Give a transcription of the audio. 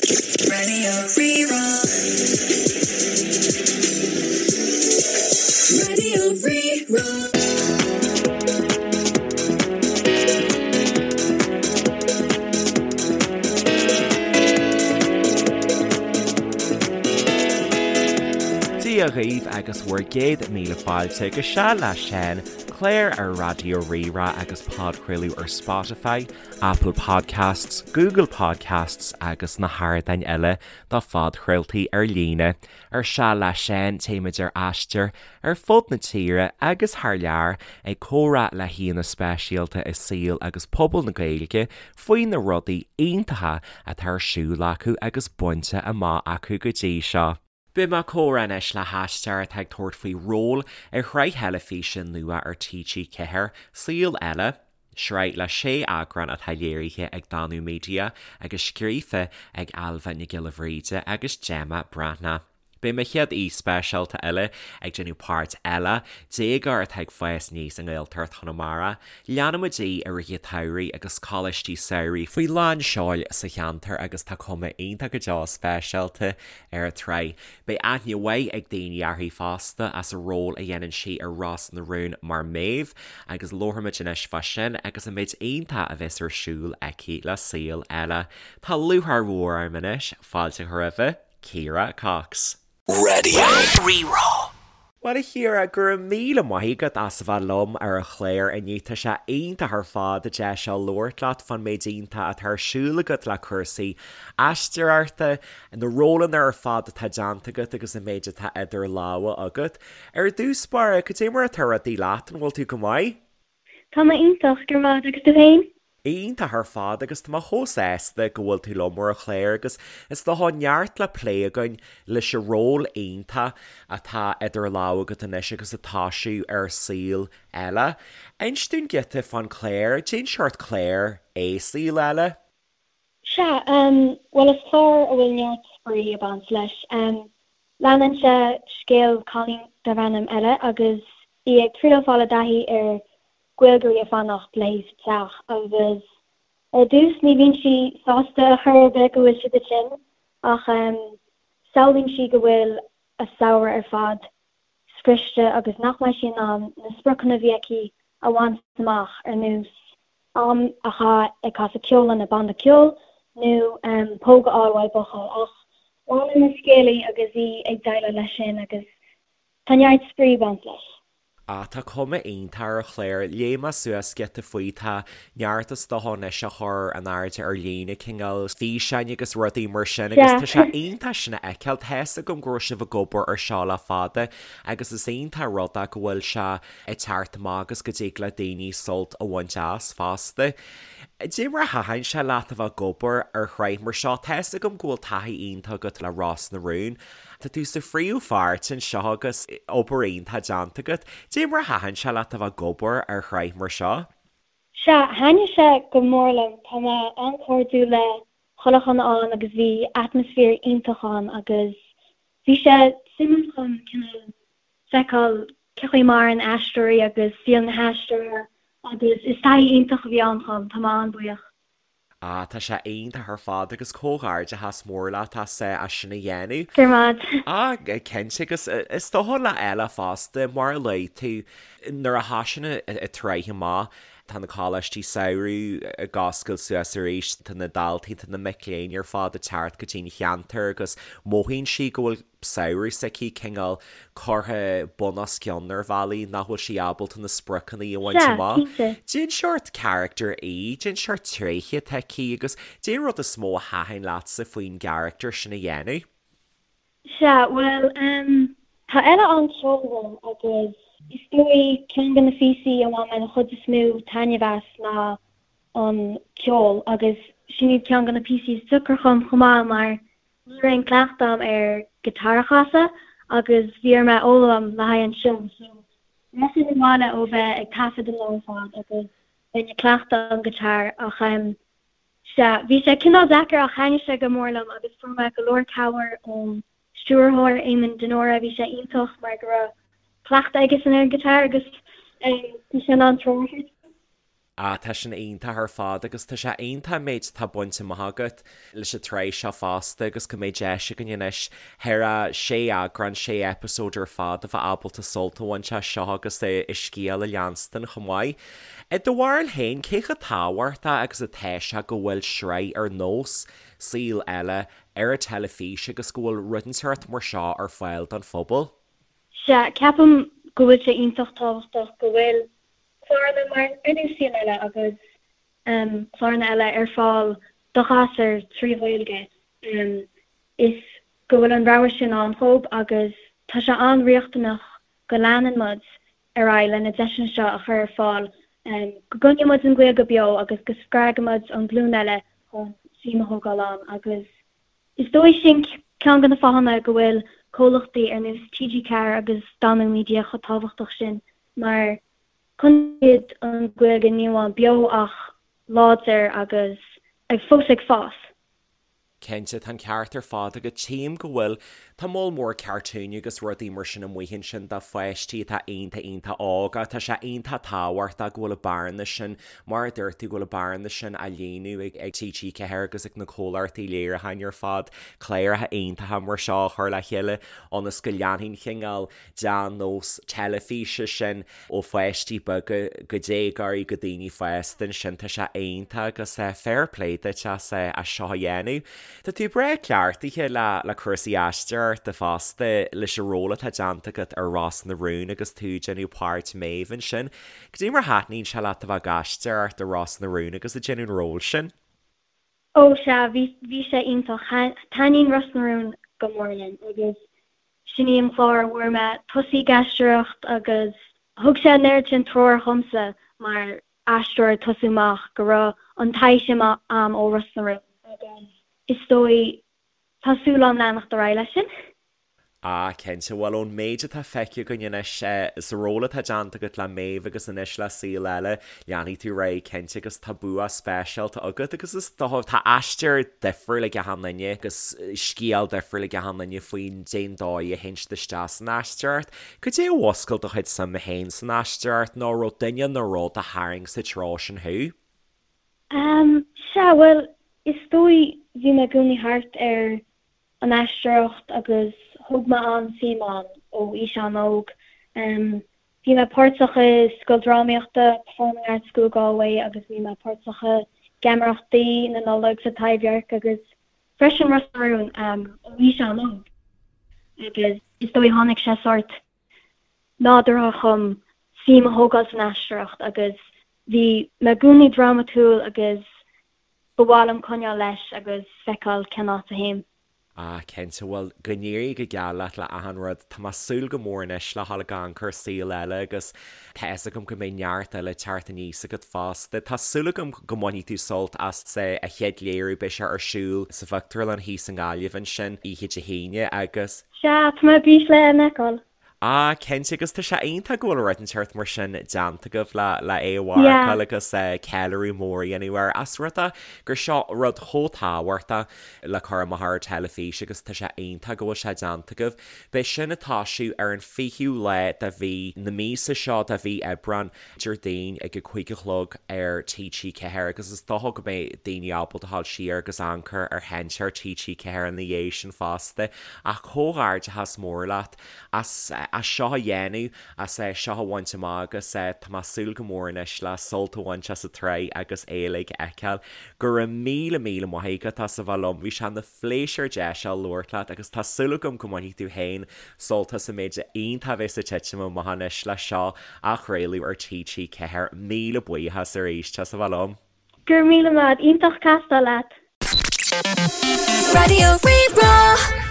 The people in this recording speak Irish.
Radio Rí-Rá. Radio Rí-Rá. Dia dhaoibh agus bhur gcéad míle fáilte go Seal le Seán, clár ar Raidió Rí-Rá agus podchraoladh ar Spotify, Apple Podcasts, Google Podcasts agus na hardáin eile do phodchraoltaí ar líne. Ar Seal le Seán, téimid ar aistear ar fud na tíre agus thar lear ag comhrá le haíonna speisialta i saol agus pobal na Gaeilge faoi na rudaí iontacha atá ar siúl acu agus bainte amach acu go dtí seo. Beidh mé ag comhrá anois le haisteoir atá ag tabhairt faoi ról ar shraith theilifíse nua ar TG4, Saol Ella, sraith le sé eagrán atá léirithe ag Danú Media agus scríofa ag Ailbhe Nic Giolla Bhríde agus Gemma Breathnach. Beidh mo chéad aoi speisialta eile ag déanamh páirt Ella, déagóir atá ag fás aníos i nGaeltacht Chonamara. Leanfaimid í i rith an tsamhraidh agus coláistí samhraidh faoi lán seoil sa cheantar agus tá cuma iontach go deo speisialta ar an tsraith. Beidh aithne mhaith ag daoine uirthi fosta as a ról a dhéanann sí ar Ros na Rún mar Méabh agus labharfaimid anois fá sin agus an méid iontach a bheas ar siúl aici le Saol Ella. Tá lúcháir mhór orm anois fáilte a chur roimhe Ciara Cox. Radio Rí-Rá. Bhuel a Chiara, go raibh míle maith agat as a bheith liom ar an chlár inniu. Tá sé iontach ar fad an deis seo labhairt leat fán méid iontach atá ar siúl agat le cúrsaí aisteoireachta, na rólanna ar fad atá déanta agat agus an méid atá idir lámha agat. Ar dtús báire, cad é mar atá rudaí leat, an bhfuil tú go maith? Tá mé iontach, go raibh maith agat, agus tú féin? Iontach ar fad agus tá mé chomh sásta go bhfuil tú liom ar an chlár agus is dócha neart le plé againn leis an ról iontach atá idir lámha agat anois agus ag toisiú ar Saol Ella. Inis dúinn giota fán chlár, cén seort clár é Saol Ella? Sea, bhuel is clár a bhfuil neart spraoi ag baint leis. Leanann sé scéal cailín darb ainm Ella agus í ag triail fáil i dtaithí ar Gaeilgeoirí ag fanacht léi sa teach agus ar dtús ní bhíonn sí sásta ar chor ar bith go bhfuil siad ansin ach samhlaíonn sí go bhfuil a samhradh ar fad scriosta agus nach mbeidh sí in ann na spriocanna a bhí aici a bhaint amach ar nós am a chaitheamh ag casadh ceoil lena banda ceoil nó póg a fháil uaidh buachaill ach leanann an scéal í agus í ag déileáil leis sin agus tá neart spraoi ag baint leis. Ah tá cuma iontach ar an chlár, léigh mé suas giota faoi, tá neart is dócha anois á chur in airde ar líne, cineál físeáin agus rudaí mar sin agus tá sé iontach sin a fheiceáil, tá fhios agam go raibh sibh ag obair ar seo le fada agus is iontach rud é go bhfuil sé ag teacht amach agus go dtig le daoine sult a bhaint as fosta. Cad é mar a thaitin sé leat a bheith ag obair ar shraith mar seo? Tá fhios agam go bhfuil taithí iontach agat le Ros na Rún. Tá tú sa phríomhpháirt anseo agus obair iontach déanta agat. Cad é mar a thaitin sé leat a bheith ag obair ar shraith mar seo? Sea, thaitnigh sé go mór liom. Tá mé an-chairdiúil le chuile dhuine ann agus bhí atmaisféar iontach ann agus bhí sé suimiúil chun cineál feiceáil cé chaoi a maireann aisteoirí agus saol na haisteora agus is taithí iontach a bhí ann dhom, tá mé an-bhuíoch. Ah, tá sé iontach ar fad agus comhghairdeachas mór leat as as sin a dhéanamh. Go raibh maith. Ah, cinnte agus is dócha le Ella fosta, mar a luaigh tú, nuair a thosaíonn an tsraith amach, tá na coláistí samhraidh ag oscailt suas arís, tá na daltaí, tá na mic léinn ar fad ag teacht go dtí an cheantar agus mothaíonn sí go bhfuil samhradh s'aici cineál curtha bun os cionn ar bhealaí nach bhfuil sí ábalta na spriocanna a bhaint Sea, amach. cinnte. Cén seort character í, cén seort tréithe atá aici agus cén rud is mó a thaitin leatsa faoin gcarachtar sin a dhéanamh? Sea, bhuel, em, tá Ella an-cheolmhar agus is dóigh ceann de na phíosaí a bhain mé an chuid is mó taitneamh as ná an ceol agus sin iad ceann de na píosaí is deacra dhom chomh maith mar Ní raibh aon cleachtadh agam ar guitar a chasadh agus bhí orm é a fhoghlaim le haghaidh an seó so rachainn abhaile ó bheith ag taifead an lá ar fad agus bheinn ag cleachtadh an guitar ach em sea bhí sé cineál deacair ach thaitnigh sé go mór liom agus fuair mé go leor cabhair ón stiúrthóir Éamonn de Mórdha bhí sé iontach mar go raibh cleachtadh aigesan ar an guitar agus em bhí sé in ann treoir a thabhairt dom. Ah, tá sin iontach ar fad agus tá sé iontach an méid atá bainte amach agat leis an tsraith seo fosta agus go mbeidh deis againn anois thar a sé eagrán, sé eipeasóid ar fad a bheith ábalta sult a bhaint as seo agus a scéal a leanstan chomh maith. I do bharúil féin, cé chomh tábhachtach agus atá sé go bhfuil sraith ar nós Saol Ella ar an teilifís agus go bhfuil rud inteacht mar seo ar fáil don phobal? Sea, ceapaim go bhfuil sé iontach tábhachtach go bhfuil cláranna mar ar nós Saol Ella agus cláranna eile ar fáil do ghasúir trí Ghaeilge. Is go bhfuil an rogha sin ann dhóibh agus tá sé an-riachtanach go leanann muid ar aghaidh le na deiseanna seo a chur ar fáil, go gcoinneoidh muid an Ghaeilge beo agus go spreagfaidh muid an ghlúin eile chun suim a thógáil ann agus Is dóigh sin ceann de na fáthanna go bhfuil comhlachtaí ar nós TG4 agus Danú Media chomh tábhachtach sin mar coinníonn siad an Ghaeilge ní amháin beo ach láidir agus fós ag fás. Cinnte, tá an ceart ar fad agat. Tchím go bhfuil, tá moll mór cartúin agus rudaí mar sin amuigh ansin do pháistí atá iontach iontach óg ach tá sé iontach tábhachtach go bhfuil an bearna sin Mar a dúirt tú, go bhfuil an bearna sin á líonadh ag TG4 agus ag na comhlachtaí léiriúcháin ar fad, cláracha iontacha mar seo a chur le chéile ionas go leanfaidh an cineál dea-nós teilifíse sin ó pháistí beaga go déagóirí go daoine fásta ansin. Tá sé iontach agus fair play duit as seo a dhéanamh. Tá tú breá cleachtaithe le cúrsaí aisteoireachta fosta leis an ról atá déanta agat ar Ros na Rún agus tú ag déanamh páirt Maeve ansin. Cad é mar a thaitníonn sé leat a bheith ag aisteoireacht i Ros na Rún agus ag déanamh an ról sin? Ó sea, bhí, bhí sé iontach. Taitníonn Ros na Rún go mór liom agus sin í an clár a bhfuair mé tosaí ag aisteoireacht agus thug sé an oiread sin treoir dhomsa mar aisteoir ag tosú amach go raibh an taithí sin a'm ó Ros na Rún agus is dóigh tá súil a'm leanacht ar aghaidh leis sin. Ah, cinnte. Bhuel, ón méid atá feicthe againn anois, sa ról atá déanta agat le Maeve agus anois le Saol Ella, leanfaidh tú ar aghaidh cinnte agus tá bua speisialta agat agus is dócha, tá aistear difriúil ag achan duine agus scéal difriúil ag achan duine faoin dén dóigh a théann siad isteach san aisteoireacht. Cad é a mhúscail do chuid suime féin san aisteoireacht nó raibh duine nó rud a tharraing sa treo sin thú? Ehm, sea, bhuel, is dóigh bhí mé i gcónaí thart ar an aisteoireacht agus thóg mé an-suim ann ó aois an-óg. Bhí mé páirteach i scoil drámaíochta, Performing Arts School Galway agus bhí mé páirteach i geamaireachtaí na Nollag sa Taibhdhearc agus freisin Ros na Rún ó aois an-óg agus is dóigh tháinig sé sórt nádúrtha chugam suim a thógáil san aisteoireacht agus bhí mé i gcónaí drámatúil agus Ba mhaith liom coinneáil leis agus feiceáil cén áit a théim. Ah, cinnte. Bhuel, go n-éirí go geal leat le achan rud. Tá mé ag súil go mór anois le dhul ag amharc ar Saol Ella agus tá fhios agam go mbeidh neart eile ag teacht aníos agat fosta. Tá súil agam go mbainfidh tú sult as an chéad léiriú, beidh sé ar siúl sa phictiúrlann thíos i nGaillimh ansin oíche Dé hAoine agus. Sea, tá mé ar bís le é a fheiceáil. Ah, cinnte, agus tá sé iontach go bhfuil rud inteacht mar sin déanta agaibh le le é a mharcáil agus ceiliúradh mór a dhéanamh air as rud é gur seo rud chomh tábhachtach le cur amach ar an teilifís agus tá sé iontach go bhfuil sé déanta agaibh. Beidh sin ag toisiú ar an 20ú lá de mhí na míosa seo, de mhí Aibreán, Déardaoin ag a 5 a chlog ar TG4 agus is dócha go mbeidh daoine ábalta dhul siar agus amharc ar sheinnteoir TG4 ina dhiaidh sin fosta. Ach comhghairdeachas mór leat as as seo a dhéanamh, as é seo a bhaint amach agus tá mé ag súil go mór anois le sult a bhaint as an tsraith agus é uilig a fheiceáil. Go raibh míle míle maith agat as a bheith liom, bhí sé ina phléisiúr deis a labhairt leat agus tá súil agam go mbainfidh tú féin sult as an méid iontach a bheas ag titim amach anois leis seo á chraoladh ar TG4. Míle buíochas arís as a bheith liom. Go raibh míle maith, iontach castáil leat. Raidió Rí-Rá.